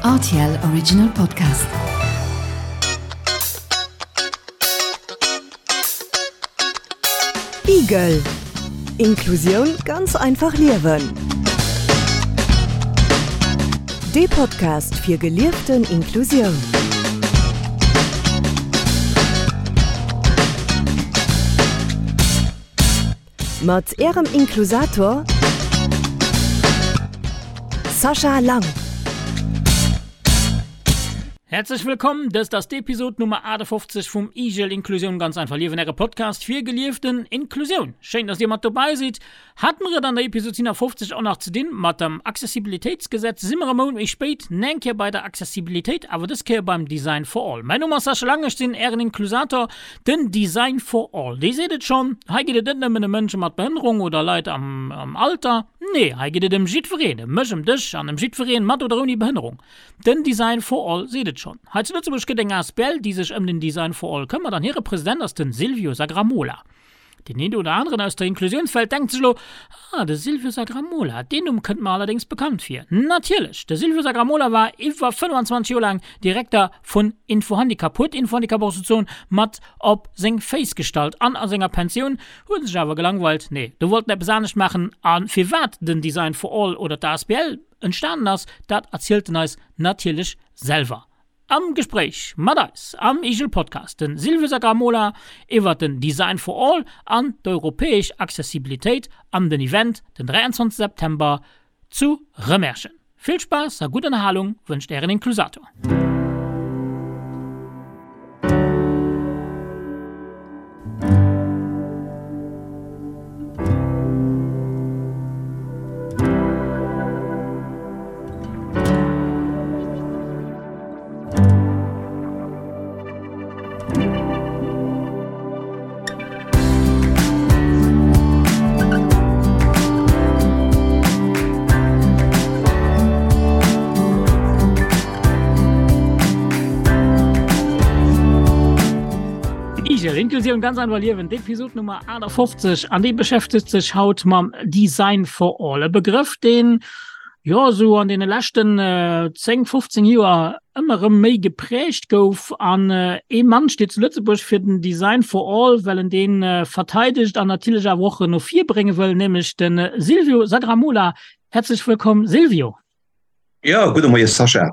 Rtl Original Podcast. Igel Inklusioun ganz einfach liewen. Dee Podcast fir gelieften Inklusioun. Mat Ärem Inklusator Sascha Lang. Häerzlech wëllkomm, dëst ass d'Episod Nummer 58 vum Igel Inklusioun ganz einfach liewen, äre Podcast fir gelieften Inklusioun. Schéin, dass dir mat dobäi sidd. Hate mer et an der Episod 57 och nach ze dinn mat dem Accessibilitéitsgesetz, si mer e Mount méi spéit neng Kéier bei der Accessibilitéit, awer dës Kéier beim Design for All. Mäin Numm ass Sascha Lang, ech sinn Ären Inklusator. Den Design for All, dee seet et schonn, hei geet et net nëmmen ëm Mënsche mat Behënnerung oder Leit am Alter, nee, hei geet et ëm jiddwereen, ëm mech, ëm dech an ëm jiddwereen mat oder ouni Behënnerung. Den Design for All seet et schonn. Hei zu Lëtzebuerg gëtt eng asbl, déi sech ëm den Design for All këmmert an hire President ass den Silvio Sagramola. Deen een oder aneren aus der Inklusiounswelt denkt sech elo, Ah, de Silvio Sagramola, deen Numm kënnt mer allerdéngs bekannt vir. Natierlech, de Silvio Sagramola war iwwer 25 Joer laang Direkter vun Info-Handicap, huet Info-Handicap och souzesoen mat op seng Féiss gestallt an a senger Pensioun huet en sech awer gelangweilt, nee, do wollt en eppes anescht maachen. A firwat den Design for All oder d'ASBL entstanen ass, dat erzielt en eis natierlech selwer. Am Gespréich mat eis am Igel Podcast den Silvio Sagramola iwwert den Design for All an d'europäesch Accessibilitéit an den Event den 23 September zu Rëmerschen. Vill Spaass a gutt Ënnerhalung wënscht ären Inklusator. Igel, Inklusioun ganz einfach liewen, d'Episod Nummer 58 an déi beschäftegt sech haut mam Design for All, e Begrëff, deen jo esou an deene leschten 10, 15 Joer ëmmer erëm méi geprägt gouf. An ee Mann steet zu Lëtzebuerg fir den Design for All, well en dee verteidegt an natierlech awer och no vir brénge wëll, nämlech de Silvio Sagramola. Häerzlech wëllkomm Silvio. Jo, gudde Moie Sascha.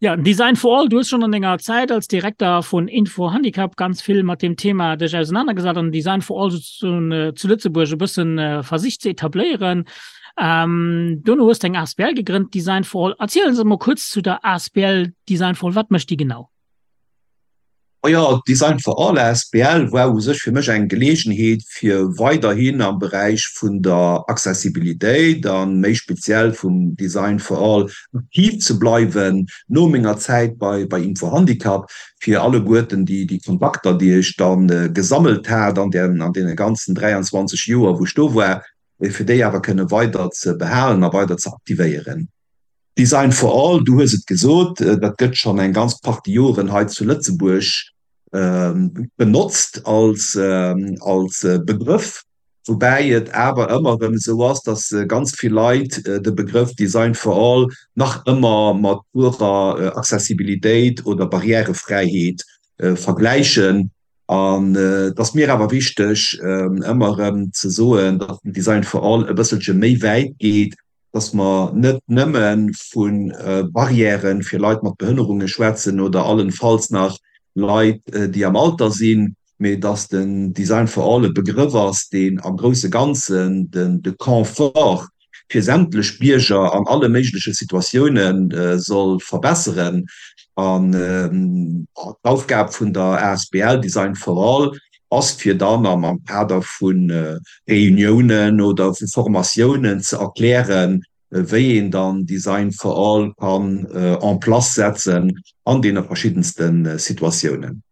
Ja, Design for All, du hues schonn an denger Zäit als Direkter vun Info Handicap ganz vill mat deem Thema dech ausenanergesat an Design for All sozusagen zu Lëtzebuerg e bëssen versicht ze etabléieren. Dono hues de eng asbl gegrënnt, Design for All. Erziel ons emol kuerz zu der asbl Design for All, wat mécht déi genau? Majo, d'Design for All asbl war u sech fir mech eng Geleegenheet, fir weiderhin am Beräich vun der Accessibilitéit a méi speziell vum Design for All aktiv ze bleiwen no menger Zäit bei bei Info-Handicap, fir alleguerten déi déi Kontakter, déi ech da gesammelt hat an der an deene ganzen 23 Joer, wou ech do war, fir déi awer kënne weider ze behalen a weider ze aktivéieren. Design for all, du hues et gesot, dat gëtt schonn eng ganz Partie Joren hei zu Lëtzebuerg benotzt als Begrëff, woubäi et awer ëmmer erëm esou ass, datt ganz vill Leit de Begrëff Design for all nach ëmmer mat purer Accessibilitéit oder Barrièrefräiheet vergläichen. An et ass mir awer wichteg, ëmmer erëm ze soen, datt den Design for all e bësselche méi wäit geet, dass mer net nëmme vu Barrièrë fir Leit mat Behënnerunge schwätzen oder allenfalls nach Leit, déi am Alter sinn, mee dass den Design for all e Begrëff ass, deen am grousse Ganzen de Confort fir sämtlech Bierger an alle méigleche Situatioune soll verbesseren. An d'Aufgab vun der asbl Design for all ass, fir dann am Kader vu Reuniounen oder vu Formatiounen ze erklären, wéi een dann Design for All kann en place setzen an deene verschiddenste Situatiounen.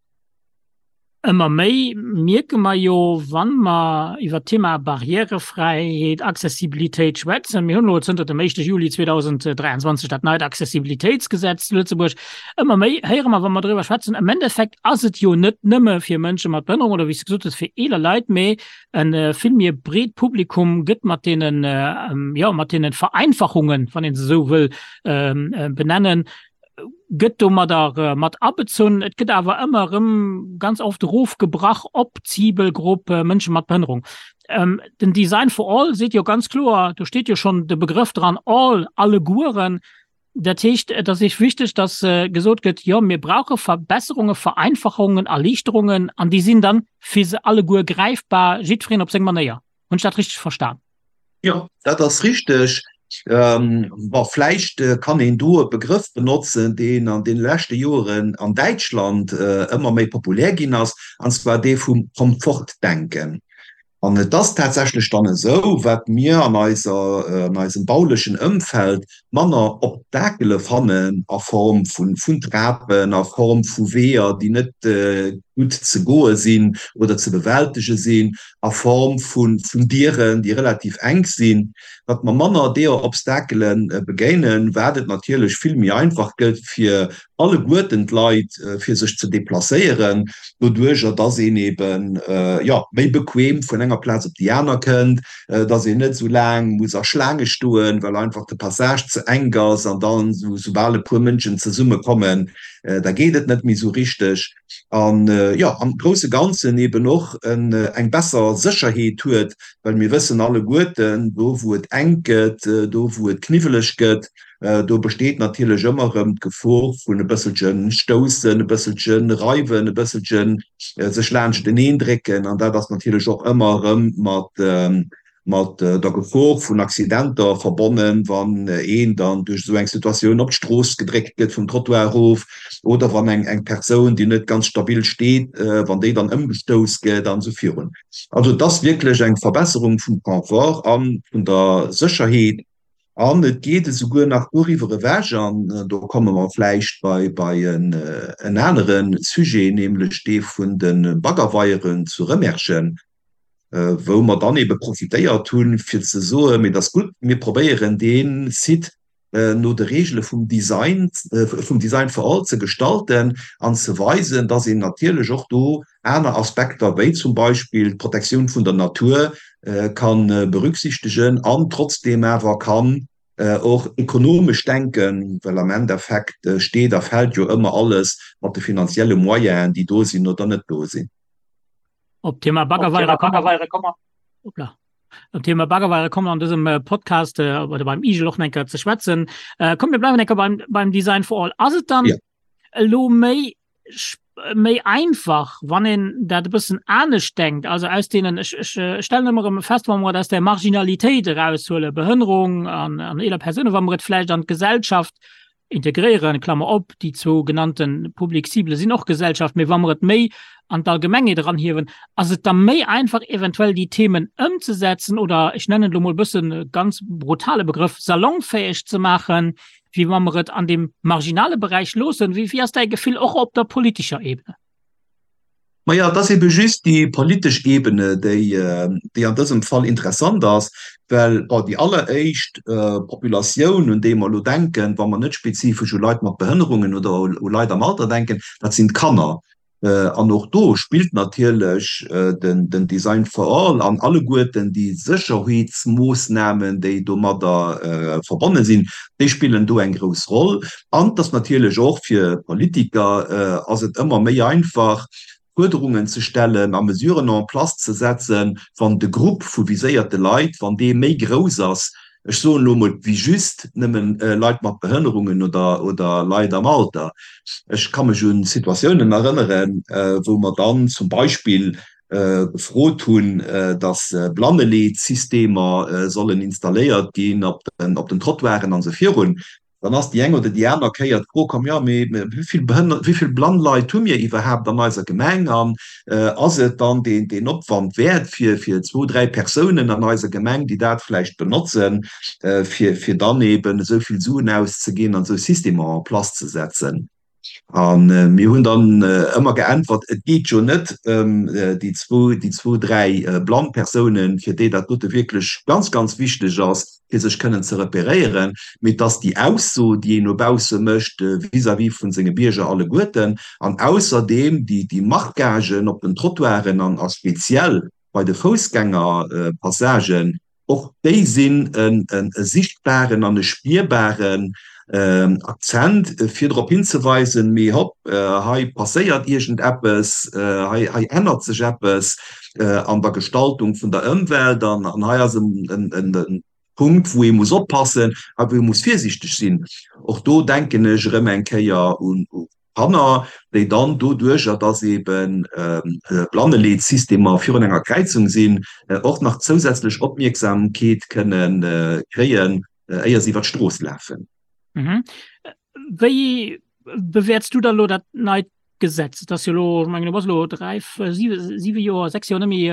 Ëmmer méi mierke mer jo, wa mer iwwert d'Thema Barrièrefräiheet, Accessibilitéit schwätzen, mir hunn elo zënter dem éischte Juli 2023 dat neit Accessibilitéitsgesetz zu Lëtzebuerg, Ëmmer méi héiere mer, wa mer driwwer schwätzen, am Endeffekt ass et jo net nëmme fir Mënsche mat Behënnerung oder, wéi s de gesot hues, fir eeler Leit, mee e vill méi breet Publikum gëtt mat deenen, jo, mat deene Vereinfachungen, wann ee se esou wëll benennen, Gëtt domadder mat abezunn. Et gëtt awer ëmmer erëm ganz oft erofgebrach op d'Zibelgrupp Mënsche mat Behënnerung. Den Design for All seet jo ganz kloer, do steet jo schonn de Begrëff dran, all, allegueren. Dat heescht, et ass Iech wichteg, datt gesot gëtt, jo, mir brauche Verbesserungen, Vereinfachungen, Erliichterungen, an déi sinn dann fir se alleguer gräifbar, jiddwereen op seng Manéier. Hunn ech dat richteg verstan? Jo, dat ass richteg. Bon, vläicht kann een do e Begrëff benotzen, deen an deene leschte Joren an Däitschland ëmmer méi populär ginn ass, an zwar dee vum Komfortdenken. An et ass tatsächlech dann esou, wat mir an eiser, an eisem baulechen Ëmfeld manner Obstakele fannen a Form vun Trapen, a Form vu Weeër, déi net gutt ze goe sinn oder ze bewältege sinn, a Form vun Dieren, déi relativ enk sinn, wat mer manner deeër Obstakele begéinen, wat et natierlech vill méi einfach gëtt fir alleguerten d'Leit, fir sech ze deplacéieren, doduerjer dass een eben, jo, méi bequem vun enger Plaz op déi aner kënnt, dass een net esou laang muss a Schlaange stoen, well einfach de Passage ze enk ass an dann, soubal e puer Mënschen zesummekommen, da geet et net méi esou richteg. An, jo, am grousse Ganzen eben och eng besser Sécherheet huet, well mir wëssen alleguerten, do wou et enk gëtt, do wou et kniwweleg gëtt, do besteet natierlech ëmmer erëm d'Gefor vun e bësselche Stoussen, e bësselche Reiwen, e bësselche sech laanschteneen drécken. An dat ass natierlech och ëmmer erëm mat mat der Gefor vun Accidenter verbonnen, wann een dann duerch esou eng Situatioun op d'Strooss gedréckt gëtt, vum Trottoir erof, oder wann eng eng Persoun, déi net ganz stabil steet, wann déi dann ëmgestouss gëtt an esou virun. Also et ass wierklech eng Verbesserung vum Confort a vun der Sécherheet. An et geet esouguer nach doriwwer ewech, an do komme mer vläicht bei bei en anere Sujet, nämlech dee vun de Baggerweieren zu Rëmerschen, wou mer dann ebe profitéiert hunn, fir ze soen, mee et ass gutt, mir probéieren dee Site no de Regele vum Design, vum Design for all ze gestalten an ze weisen, dass een natierlech och do aner Aspekter, wéi zum Beispill d'Protektioun vun der Natur, ka berücksichtegen an trotzdeem awer kann och ekonomesch denken, well am Endeffekt steet a fält jo ëmmer alles mat de finanzielle Moyenen, déi do sinn oder net do sinn. Op d'Thema Baggerweiere komme mer, hoppla, op d'Thema Baggerweiere komme mer an dësem Podcast oder beim Igel och nach eng Kéier ze schwätzen. Komm, mir bleiwen eng Kéier beim, beim Design for All. Ass et dann elo méi, méi einfach, wann een dat e bëssen anescht denkt, also aus deenen, ech, ech stellen ëmmer erëm fest, wa mer et aus der Marginalitéit eraushuelen, Behënnerung an, an eeler Persounen, wa mer et vläicht an d'Gesellschaft integréieren, Klammer op, déi zwou genannte Public cible sinn och Gesellschaft, mee wa mer et méi an d'Allgemengheet eranhiewen, ass et da méi einfach eventuell déi Themen ëmzesetzen oder, ech nennen et elo mol e bëssen e ganz brutale Begrëff, salonfäeg ze maachen, wéi wa mer et an deem marginale Beräich loossen. Wéi ass däi Gefill och op der politescher Ebene? Maja, et ass ebe just déi politesch Ebene, déi, déi an dësem Fall interessant ass, well, bon, déi alleréischt Populatioun, un déi mer elo denken, wa mer net spezifesch u Leit mat Behënnerungen oder u Leit am Alter denken, dat sinn d'Kanner. An och do spillt natierlech den Design for All an alleguerten déi Sécherheetsmoossnamen, déi domadder verbonne sinn, déi spillen do eng grouss Roll. An et ass natierlech och fir Politiker ass et ëmmer méi einfach, Fuerderungen ze stellen a Mesuren en place ze setzen, wann de Grupp vu viséierte Leit, wann dee méi grouss ass, ech soen elo emol, wéi just nëmmen Leit mat Behënnerungen oder oder Leit am Alter. Ech ka mech u Situatiounen erënneren, wou mer dann zum Beispill gefrot hunn, dass Blanneleetsystemer sollen installéiert ginn op den op den Trottoiren an esou virun. Dann ass déi eng oder déi aner Kéier d'Fro komm, jo, mee wéi vill Behënner, wéi vill blann Leit hu mir iwwerhaapt an eiser Gemeng an ass et dann deen, deen Opwand wäert fir, fir zwou, dräi Persounen an eiser Gemeng, déi dat vläicht benotzen, fir, fir dann eeben esou vill Suen auszeginn an esou Systemer en place ze setzen? A mir hunn dann ëmmer geäntwert, et geet jo net ëm déi zwou, déi zwou, dräi blann Persounen, fir déi dat dote wierklech ganz, ganz wichteg ass, fir sech kënnen ze repéréieren, mee et ass déi Ausso, déi een no bausse mécht vis-à-vis vu senge Bierger alleguerten an ausserdeem déi, déi Marquagen op den Trottoiren an a speziell bei de Foussgängerpassagen, Och déi sinn e sichtbaren an e spierbaren. Akzent, fir drop hinzeweisen, mee hopp, hei passéiert iergendeppes, hei hei ännert sech eppes an der Gestaltung vun der Ëmwelt an an hei ass en Punkt, wou ee muss oppassen a wou ee muss virsiichteg sinn. Och do denken ech erëm eng Kéier un Kanner, déi dann doduercher, dass ebe Blanneleetsystemer virun enger Kräizung sinn, och nach zousätzlech Opmierksamkeet kënne kréien, éier se iwwer d'Strooss lafen. Wéi bewäerts du da elo dat neit Gesetz? Et ass jo elo, ech mengen, du bass elo dräi, siwe Joer, sechs Joer net méi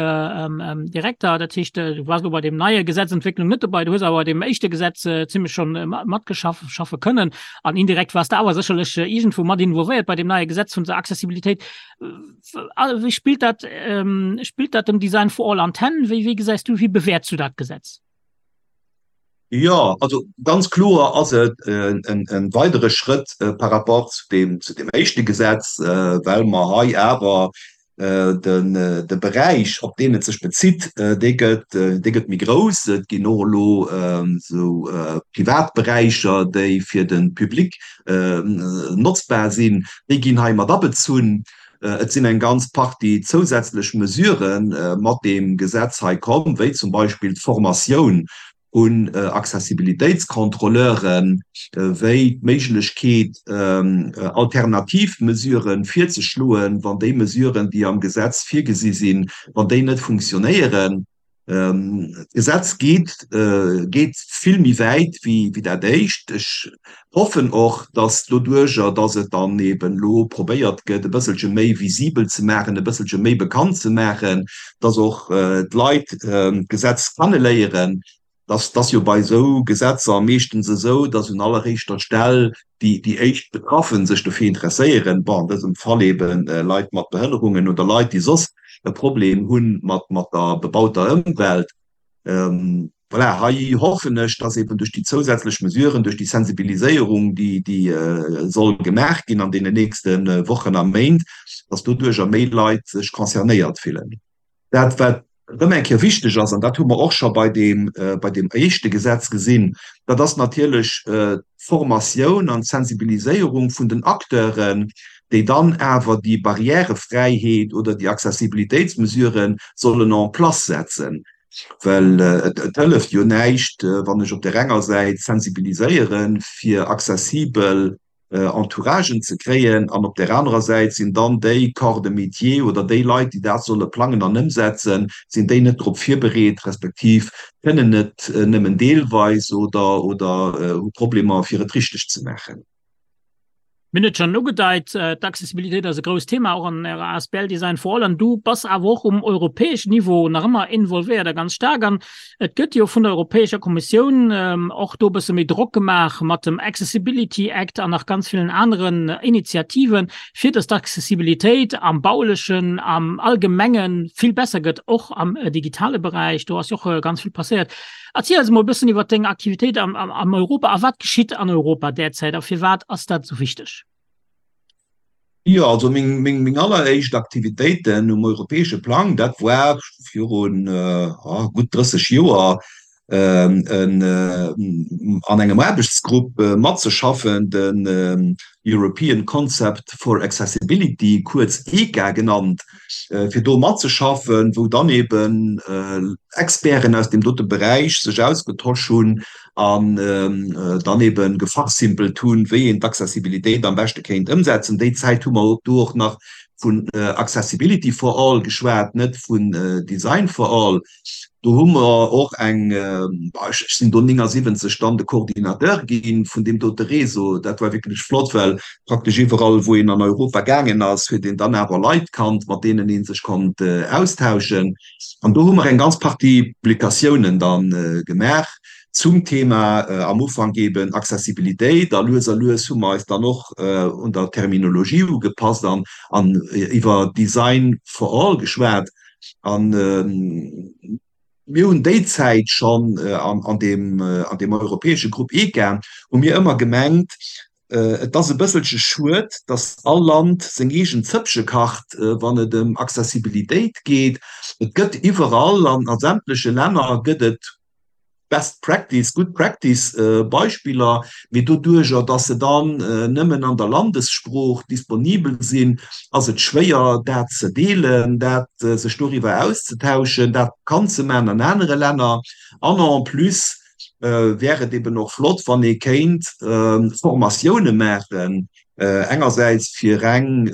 Direkter. Dat heescht, du waars elo bei deem neie Gesetzentwécklung net dobäi. Du hues awer bei deem éischte Gesetz zimlech schonn matgeschaff, schaffe kënnen. An indirekt waars de awer sécherlech iergendwou mat involvéiert bei deem neie Gesetz vun der Accessibilitéit. Wéi spillt dat, spillt dat dem Design for All an d'Hänn? Wéi, wéi gesäis du, wéi bewäerts du dat Gesetz? Jo, also ganz kloer ass et e weidere Schrëtt par rapport zu deem, zu deem éischte Gesetz, well mer hei awer De Beräich, op deen et sech bezitt, dee gëtt, dee gëtt méi grouss. Et ginn och elo esou privat Beräicher, déi fir de Public notzbar sinn, déi ginn hei mat abezunn. Et sinn eng ganz Partie zousätzlech Mesurë mat deem Gesetz hei komm, wéi zum Beispill d'Formatioun un Accessibilitéitscontrôleuren, wéi d'Méiglechkeet, alternativ Mesuren virzeschloen, wann déi Mesuren, déi am Gesetz virgesi sinn, wann déi net funktionéieren. D'Gesetz geet, geet vill méi wäit wéi dat éischt. Ech hoffen och, dass doduerjer, dass et dann eben elo probéiert gëtt, e bësselche méi visibel ze maachen, e bësselche méi bekannt ze maachen, dass och d'Leit d'Gesetz kenneléieren. Dass ass jo bei esou Gesetzer meeschtens esou, dass un alleréischter Stell déi déi éischt Betraffen sech dofir interesséieren, bon, an dësem Fall ebe Leit mat Behënnerungen oder Leit, déi soss e Problem hu mat mat der bebauter Ëmwelt. Voilà, hei hoffen ech, dass eben duerch déi zousätzlech Mesuren, duerch déi Sensibiliséierung, déi déi soll gemaach ginn an deenen nächste Wochen a Méint, dass doduercher méi Leit sech concernéiert fillen. Dat, wat erëm eng Kéier wichteg ass, an dat hu mer och scho bei deem, bei deem éischte Gesetz gesinn, dat ass natierlech d'Formatioun an d'Sensibiliséierung vun den Acteuren, déi dann awer déi Barrièrefräiheet oder déi Accessibilitéitsmesurë sollen en place setzen. Well et hëlleft jo näischt, wann ech op där enger Säit sensibiliséiere fir accessibel Entouragen ze kréien an op där anerer Säit sinn dann déi Corps de métier oder déi Leit, déi dat solle plangen an ëmsetzen, sinn déi net drop virbereet, respektiv kënnen et nëmmen deelweis oder hu Problemer, fir et richteg ze maachen. Mir hunn et schonn ugedeit, d'Accessibilitéit ass e grousst Thema och an Ärer asbl Design for All. An du bass awer och um europäeschen Niveau nach ëmmer involvéiert a ganz staark. An et gëtt jo vun der Europäescher Kommissioun och do e bësse méi Drock gemaach mat dem Accessibility Act an nach ganz villen aneren Initiativen, fir datt d'Accessibilitéit am Baulechen, am Allgemenge vill besser gëtt, och am digitale Beräich. Do ass jo och ganz vill passéiert. Erziel eis emol e bëssen iwwer deng Aktivitéit am, am, am Europa a wat geschitt an Europa derzäit a firwat ass dat esou wichteg? Jo, also meng, meng, meng alleréischt Aktivitéiten um europäesche Plang, dat war virun gutt 30 Joer, en, an engem Aarbechtsgrupp matzeschaffen, den European Concept for Accessibility, kuerz ECA genannt. fir do matzeschaffen, wou dann eben Experten aus deem dote Beräich sech ausgetosch hunn an dann eben gefachsimpelt hunn, wéi een d'Accessibilitéit am beschte kéint ëmsetzen. Déi Zäit hu mer do och nach vun Accessibility for all geschwat, net vun Design for all. Do hu mer och eng, ech sinn do 79 dann de Coordinateur gi vun deem dote Réseau. Dat war wierklech flott, well praktesch iwwerall, wou een an Europa gaangen ass, huet een dann awer Leit kannt, mat deenen ee sech konnt austauschen. An do hu mer eng ganz Partie Publikatiounen da gemaach zum Thema am Ufank eeben Accessibilitéit. A lues a lues hu mer eis dann och un der Terminologie ugepasst an iwwer Design for all geschwat. An mir hunn déi Zäit schonn an deem, an deem europäesche Grupp ECA, hu mir ëmmer gemengt, et ass e bësselche schued, datt all Land seng eegen Zëppche kacht, wann et ëm Accessibilitéit geet. Et gëtt iwwerall, an a sämtleche Länner gëtt et. Best Practice, Good Practice Beispiller, mee doduerjer, dass se dann nëmmen an der Landessprooch disponibel sinn, ass et schwéier, dat ze deelen, dat sech doriwwer auszetauschen, dat bekannt ze maachen an anere Länner. An en plus wär et eben och flott, wann ee kéint Formatioune maachen, engersäits fir reng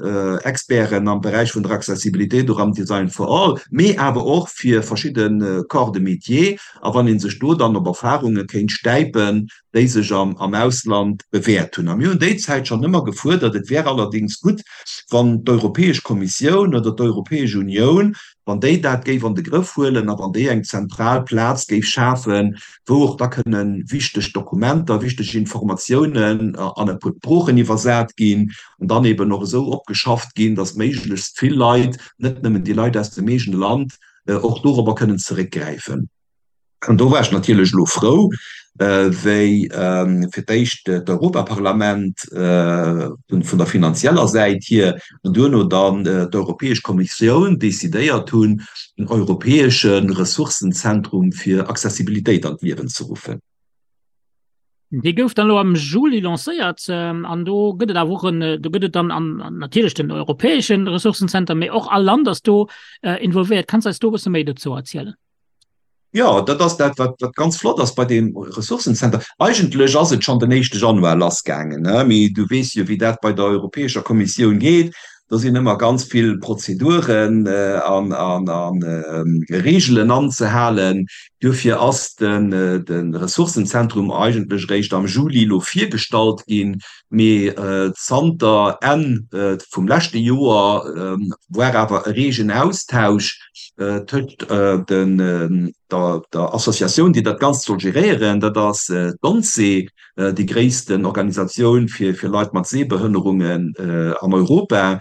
Experten am Beräich vun der Accessibilitéit oder am Design for All, mee awer och fir verschidde Corps de métier, a wann ee sech do dann op Erfarunge kéint stäipen, déi sech am Ausland bewäert hunn. A mir hunn déi Zäit schonn ëmmer gefuerdert, et wär allerdéngs gutt, wann d'Europäesch Kommissioun oder d'Europäesch Unioun, wann déi dat géif an de Grëff huelen a wann déi eng zentral Plaz géif schafen, wou och da kënne wichteg Dokumenter, wichteg Informatiounen an e puer Sproochen iwwersat ginn an dann eben och esou opgeschafft ginn, datt méiglechst vill Leit, net nëmmen déi Leit aus dem eegene Land, och dorobber kënnen zeréckgräifen. An do war ech natierlech elo frou, wéi fir d'éischt d'Europaparlament vun der finanzieller Säit hier an duerno dann d'Europäesch Kommissioun decidéiert hunn, en europäesche Ressourcenzentrum fir Accessibilitéit an d'Liewen ze ruffen. Dee gouf dann elo am Juli lancéiert an do gëtt et awer och en, do gëtt et dann an natierlech den europäesche Ressourcenzenter, mee och all Land ass do involvéiert. Kanns eis do e bësse méi dozou erzielen? Jo, dat ass dat, wat, wat ganz flott ass bei deem Ressourcencenter. Eigentlech ass et schonn den éischte Januar lassgaangen, ne? Mee du weess jo, wéi dat bei der Europäescher Kommissioun geet. Do sinn ëmmer ganz vill Prozeduren an, an, a Reegelen anzehalen. Duerfir ass den, de Ressourcenzentrum eigentlech eréischt am Juli elo virgestallt ginn. Mee zanter Enn vum leschte Joer war awer e reegen Austausch tëscht der Associatioun, déi dat Ganzt soll geréieren, dat ass d'ONCE, déi gréissten Organisatioun fir Leit mat Sehbehënnerungen an Europa,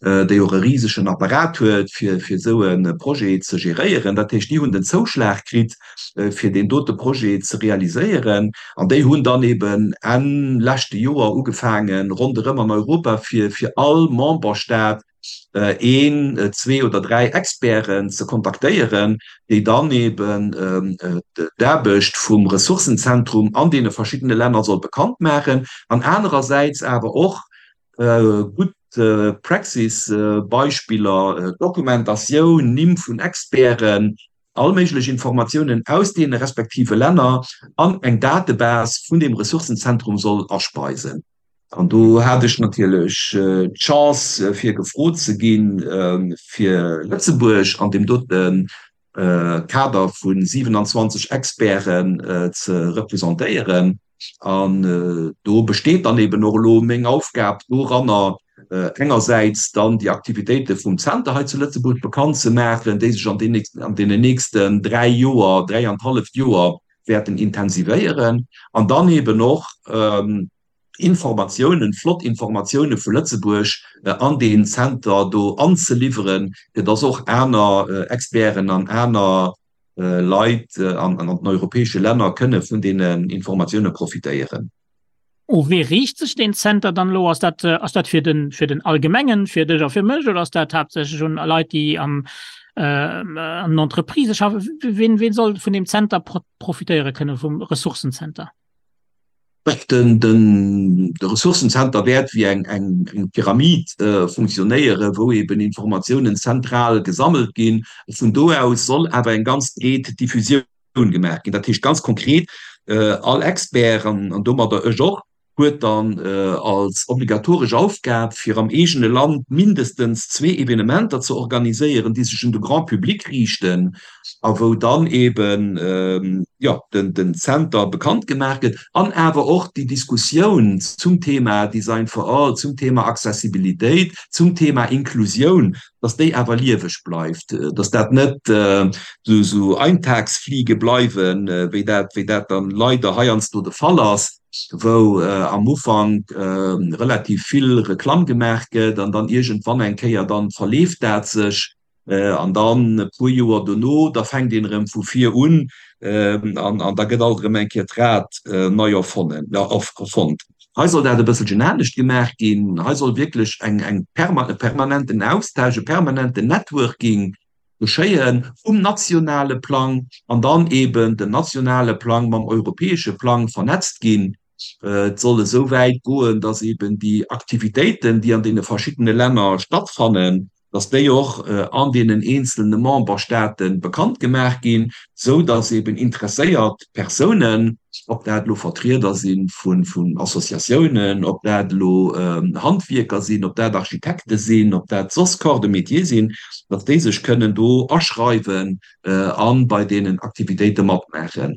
déi och e risegen Apparat huet, fir esou e Projet ze geréieren. Dat heescht, déi hunn den Zouschlag kritt, fir deen dote Projet ze realiséieren. An déi hunn dann eben Enn leschte Joer ugefaangen, ronderëm an Europa fir all Memberstaat een, zwee oder dräi Experten ze kontaktéieren, déi dann eben d'Aarbecht vum Ressourcenzentrum an deene verschiddene Länner soll bekannt maachen an anerersäits awer och gutt Praxisbeispiller, Dokumentatioun, Nimm vun Experten, all méiglech Informatiounen aus deene respektive Länner an eng Datebase vun deem Ressourcenzentrum soll aspeisen. An do hat ech natierlech d'Chance, fir gefrot ze ginn, fir Lëtzebuerg an deem dote Kader vu 27 Experten ze representéieren. An do besteet dann eben och elo meng Aufgab doranner, engersäits dann déi Aktivitéite vum Zenter hei zu Lëtzebuerg bekannt ze maachen, déi sech an deenen nächsten dräi Joer, dräianthalleft Joer wäerten intensivéieren, an dann eben och Informatiounen, flott Informatioune vu Lëtzebuerg an deen Zenter do anzeliwweren, fir dass och aner Experten an aner Leit an den europäesche Länner kënne vun deenen Informatioune profitéieren. U wee riicht sech deen Zenter dann elo? Ass dat, ass dat fir den, fir den Allgemengen, fir dech a fir mech, oder ass dat haaptsächlech un Leit, déi am, an den Entreprisë schaffen? Ween, ween soll vun deem Zenter profitéiere kënne, vum Ressourcenzenter? Den, den, de Ressourcenzenter wäert wéi eng, eng, eng Pyramid funktionéieren, wou eben Informatiounen zentral gesammelt ginn. Vun do aus soll awer eng ganz breet Diffusioun gemaach ginn. Dat heescht ganz konkret, all Expert, an domadder ech och, huet dann als obligatoresch Aufgab, fir am eegene Land mindestens zwee Evenementer ze organiséieren, déi sech un de Grand public riichten a wou dann eeben, jo, den Zenter bekannt gemaach gëtt an awer och déi Diskussioun zum Thema Design for all, zum Thema Accessibilitéit, zum Thema Inklusioun, dass déi awer lieweg bleift, dass dat net esou Eintagsfliege bleiwen, wéi dat, wéi dat dann leider heiansdo de Fall ass, wou am Ufank relativ vill Reklamm gemaach gëtt an dann iergendwann eng Kéier dann verleeft dat sech an dann e puer Joer dono, da fänkt een erëm vu vir un an da gëtt alt erëm eng Kéier d'Rad nei erfonnen, erfonnt. Hei soll dat e bësselchen anescht gemaach ginn. Hei soll wierklech eng, eng e permanenten Austausch, e permanenten Networking. geschéien um nationale Plang an dann eben den nationale Plang mam europäesche Plang vernetzt ginn. Et soll esou wäit goen, dass eben déi Aktivitéiten, déi an deene verschiddene Länner stattfannen, dass déi och an deenen eenzelne Memberstaate bekannt gemaach ginn, esou dass eben interesséiert Persounen, ob dat elo Vertrieder si vun Associatiounen, ob dat elo Handwierker sinn, ob dat Architekte sinn, ob dat soss Corps de métier sinn, dass déi sech kënnen do aschreiwen a bei deenen Aktivitéite matmaachen.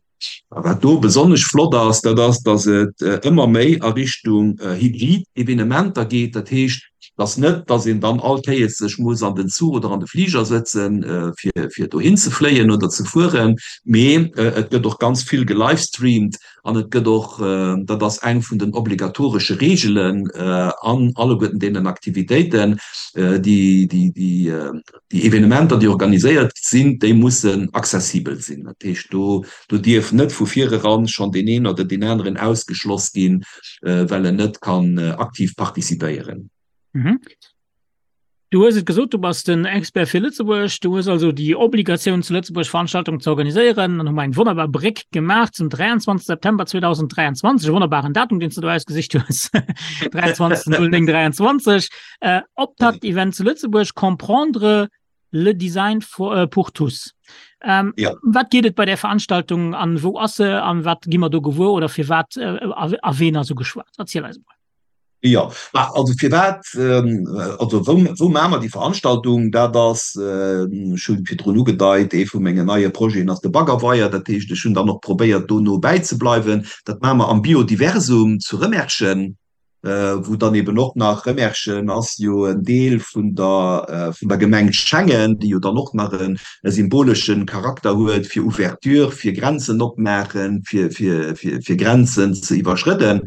A wat do besonnesch flott ass, dat ass, dass et ëmmer méi a Richtung hybrid Evenementer geet. Dat heescht, dass net, dass een dann all Kéiers sech muss an den Zuch oder an de Fliger sëtzen, fir, fir dohin ze fléien oder ze fueren, mee et gëtt och ganz vill gelivestreamt an et gëtt och, dat ass eng vun den obligatoresche Reegelen an alleguerten deenen Aktivitéiten, déi, déi, déi, Déi Evenementer, déi organiséiert sinn, déi mussen accessibel sinn. Dat heescht, do do dierf net vu vireran schonn deen een oder deen aneren ausgeschloss ginn, well en net kann aktiv participéieren. Du hues et gesot, du bass den Expert fir Lëtzebuerg. Du hues also déi Obligatioun, zu Lëtzebuerg Veranstaltungen ze organiséieren. Dann hu mer eng wonnerbar Bréck gemaach zum 23 September 2023, e wonnerbaren Datum, deen s de do ausgesicht hues, 23.09.23. Äh, Optakt-Event zu Lëtzebuerg, Comprendre le Design for, äh, pour tous. Ähm, ja. Wat geet et bei der Veranstaltung an wou ass se an wat gi mer do gewuer oder fir wat äh, a ween ass ugeschwat? Erziel eis mol. Ja, also fir wat ähm, also wou, wou maache mer déi Veranstaltung? Dat ass äh, ech hunn virdrun ugedeit, ee vu mengen neie Projeten ass de Baggerweier. Dat heescht, ech hunn dann och probéiert do no bäizebleiwen. Dat maache mer am Biodiversum zu Rëmerschen. wou dann eben och nach, Remerschen ass jo en Deel vun der, vun der Gemeng Schengen, déi jo dann och nach e symbolesche Charakter huet fir Ouverture, fir Grenzen opmaachen, fir, fir, fir, fir Grenzen ze iwwerschrëdden.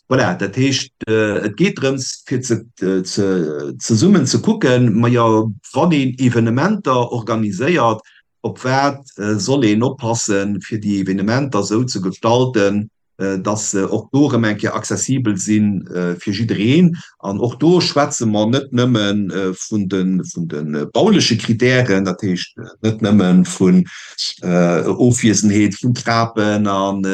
Voilà, dat heescht, et geet drëms, fir ze, ze, zesummen ze kucken, majo, wann een Evenementer organiséiert, op wat soll een oppassen, fir déi Evenementer esou ze gestalten, dass se och do erëm eng Kéier accessibel si fir jiddereen. An och do schwätze mer net nëmme vun de bauleche Kritären, dat heescht net nëmme vun Ofwiesenheet vun Trapen an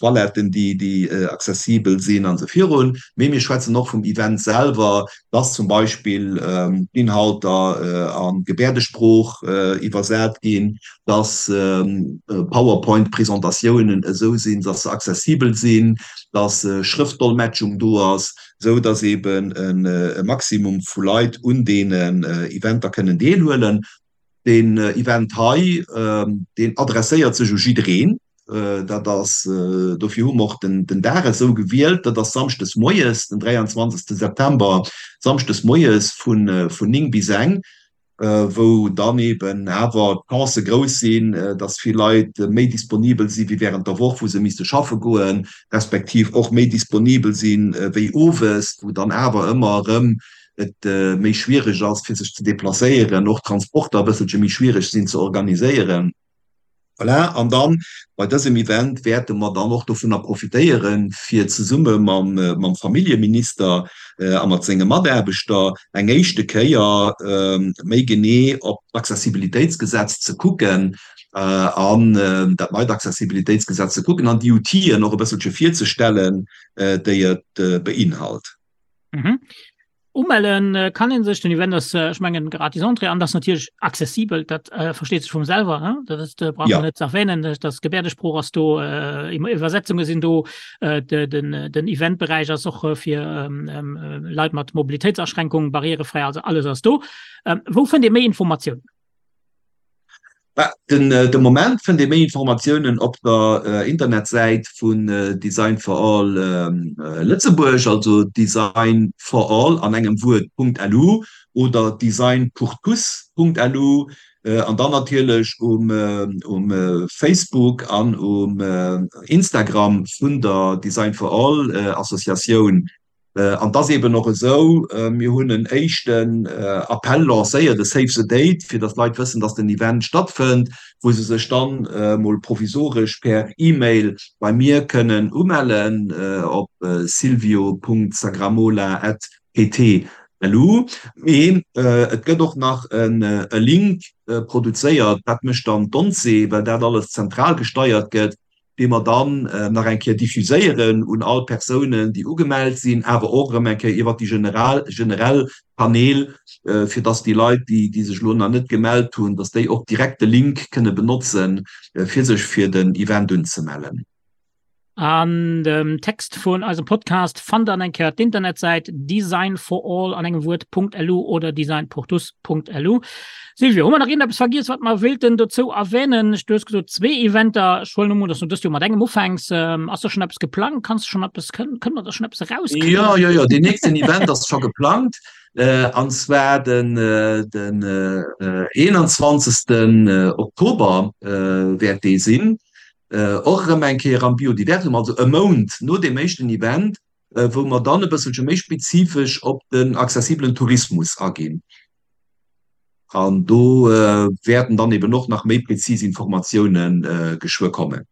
Toiletten, déi accessibel sinn an esou virun, mee mir schwätzen och vum Event selwer, dass zum Beispill d'Inhalter a Gebäerdesprooch iwwersat ginn, dass PowerPoint-Presentatiounen esou sinn, dass se accessibel sinn, dass Schrëftdolmetschung do ass, esou dass eben e Maximum vu Leit un deenen Eventer kënnen deelhuelen. Deen Event hei, deen adresséiert sech u jiddereen. Dat ass, dofir hu mer och den Dag esou gewielt, dat ass samschdes moies, den 23. September, samschdes moies vun 9 bis eng. wou dann eben awer d'Chancë grouss sinn, dass vill Leit méi disponibel si wéi während der Woch, wou se misste schaffe goen, respektiv och méi disponibel si wéi owes, wou dann awer ëmmer erëm et méi schwierig ass, fir sech ze deplacéieren, och d'Transporter e bësselche méi schwierig sinn ze organiséieren. Voilà, an dann bei dësem Event wäerte mer dann och dovunner profitéieren, fir zesumme mam Familljeminister a mat senge Mataarbechter eng éischte Kéier méi genee op d'Accessibilitéitsgesetz ze kucken an dat neit Accessibilitéitsgesetz ze kucken an déi Outiller och e bësselche virzestellen, déi et beinhalt. Umellen kann een sech, den Event ass, ech mengen, gratis Entrée an ass natierlech accessibel, dat versteet sech vum selwer, hein? Dat ass, brauch man net ze erwähnen, dass Gebäerdesprooch ass do, Iwwersetzunge sinn do, den den Eventberäich ass och fir Leit mat Mobilitéitsaschränkung barrierefräi, also alles ass do. Wou fënnt ee méi Informatiounen? Den de Moment fënnt ee méi Informatiounen op der Internetsäit vun Design for All Lëtzebuerg, also designforall an engem Wuert .lu oder designpourtous.lu an dann natierlech um um Facebook an um Instagram vun der Design for All Associatioun. An et ass eeben och esou, mir hunn en éischten Appell lancéiert, e Save the Date, fir datt d'Leit wëssen, datt den Event stattfënnt, wou se sech dann emol provisoresch per E-Mail bei mir kënnen umellen op silvio.sagramola@pt.lu. Mee et gëtt och nach e Link. produzéiert, dat mécht dann d'ONCE, well dat alles zentral gesteiert gëtt, dee mer dann nach eng Kéier diffuséieren un all Persounen, déi ugemellt sinn, awer och erëm eng Kéier iwwert déi general, generell Kanäl, fir dass déi Leit, déi, déi sech elo nach net gemellt hunn, dass déi och direkt de Link kënne benotzen, fir sech fir den Event unzemellen. An dem Text vun eisem Podcast fannt der an eng Kéier d'Internetsäit designforall an engem Wuert.lu oder designpourtous.lu. Silvio, hu mer nach iergendeppes vergiess, wat mer wéilten dozou erwänen? Du hues gesot zwee Eventer. Ech huelen emol un, dass du dëst Joer mat engem ufänks. Ass do schonn eppes geplangt? Kanns du schonn eppes, kënne mer da schonn eppes erauskriegen? Jo, jo, jo, deen nächsten Event ass scho geplangt, an zwar den den 21. Oktober wäert dee sinn. Och erëm eng Kéier am Biodiversum, also e Mount no deem éischten Event, wou mer dann e bësselche méi spezifesch op den accessibelen Tourismus aginn. An do wäerten dann eben och nach méi prezis Informatioune geschwë kommen.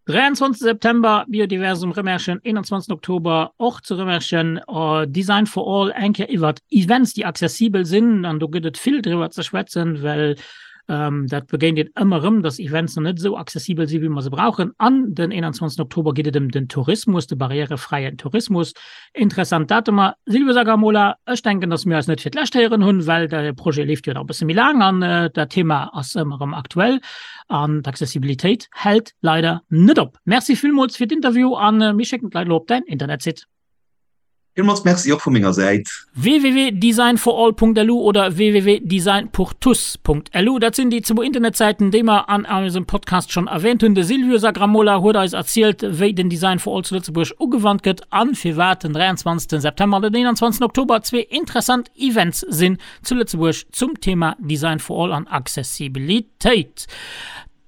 23 September, Biodiversum Rëmerschen, 21 Oktober och zu Rëmerschen, Design for All, eng Kéier iwwert Events, déi accessibel sinn. An do gëtt et vill driwwer ze schwätzen, well dat begéint een ëmmer erëm, dass Events nach net esou accessibel sinn, wéi mer se brauchen. An den 21 Oktober geet et ëm den Tourismus, de barrièrefräien Tourismus. Interessant Datumer. Silvio Sagramola, ech denken, dass mir eis net fir d'lescht héieren hunn, well de Projet leeft jo nach e bësse méi laang an dat Thema ass ëmmer erëm aktuell an d'Accessibilitéit hält leider net op. Merci villmools fir d'Interview an mir schécken d'Leit elo op däin Internetsite. Villmools Merci och vu menger Säit. www.designforall.lu oder www.designpourtous.lu, dat sinn déi zwou Internetsäiten, déi mer an eisem Podcast schonn erwähnt hunn. De Silvio Sagramola huet eis erzielt, wéi den Design for All zu Lëtzebuerg ugewannt gëtt an firwat den 23 September an den 21 Oktober zwee interessant Events sinn zu Lëtzebuerg zum Thema Design for All an Accessibilitéit.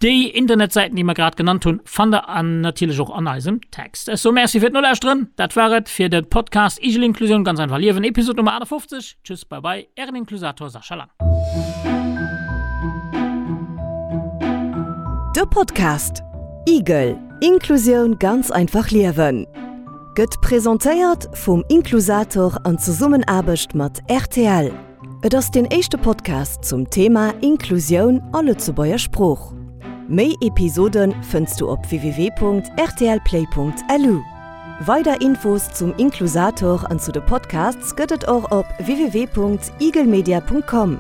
Déi Internetsäiten, déi mer grad genannt hunn, fannt der an natierlech och an eisem Text. Ech soe Merci fir d'Nolauschteren. Dat war et fir de Podcast Igel Inklusioun, ganz einfach liewen, Episod Nummer 58. Tschüss, bye bye, ären Inklusator Sascha Lang. De Podcast Igel, Inklusioun ganz einfach liewen gëtt presentéiert vum Inklusator an Zesummenaarbecht mat rtl. Et ass deen éischte Podcast zum Thema Inklusioun a Lëtzebuerger Sprooch. Méi Episode fënns du op www.rtlplay.lu. Weider Infos zum Inklusator an zu de Podcasts gëtt et och op www.igelmedia.com.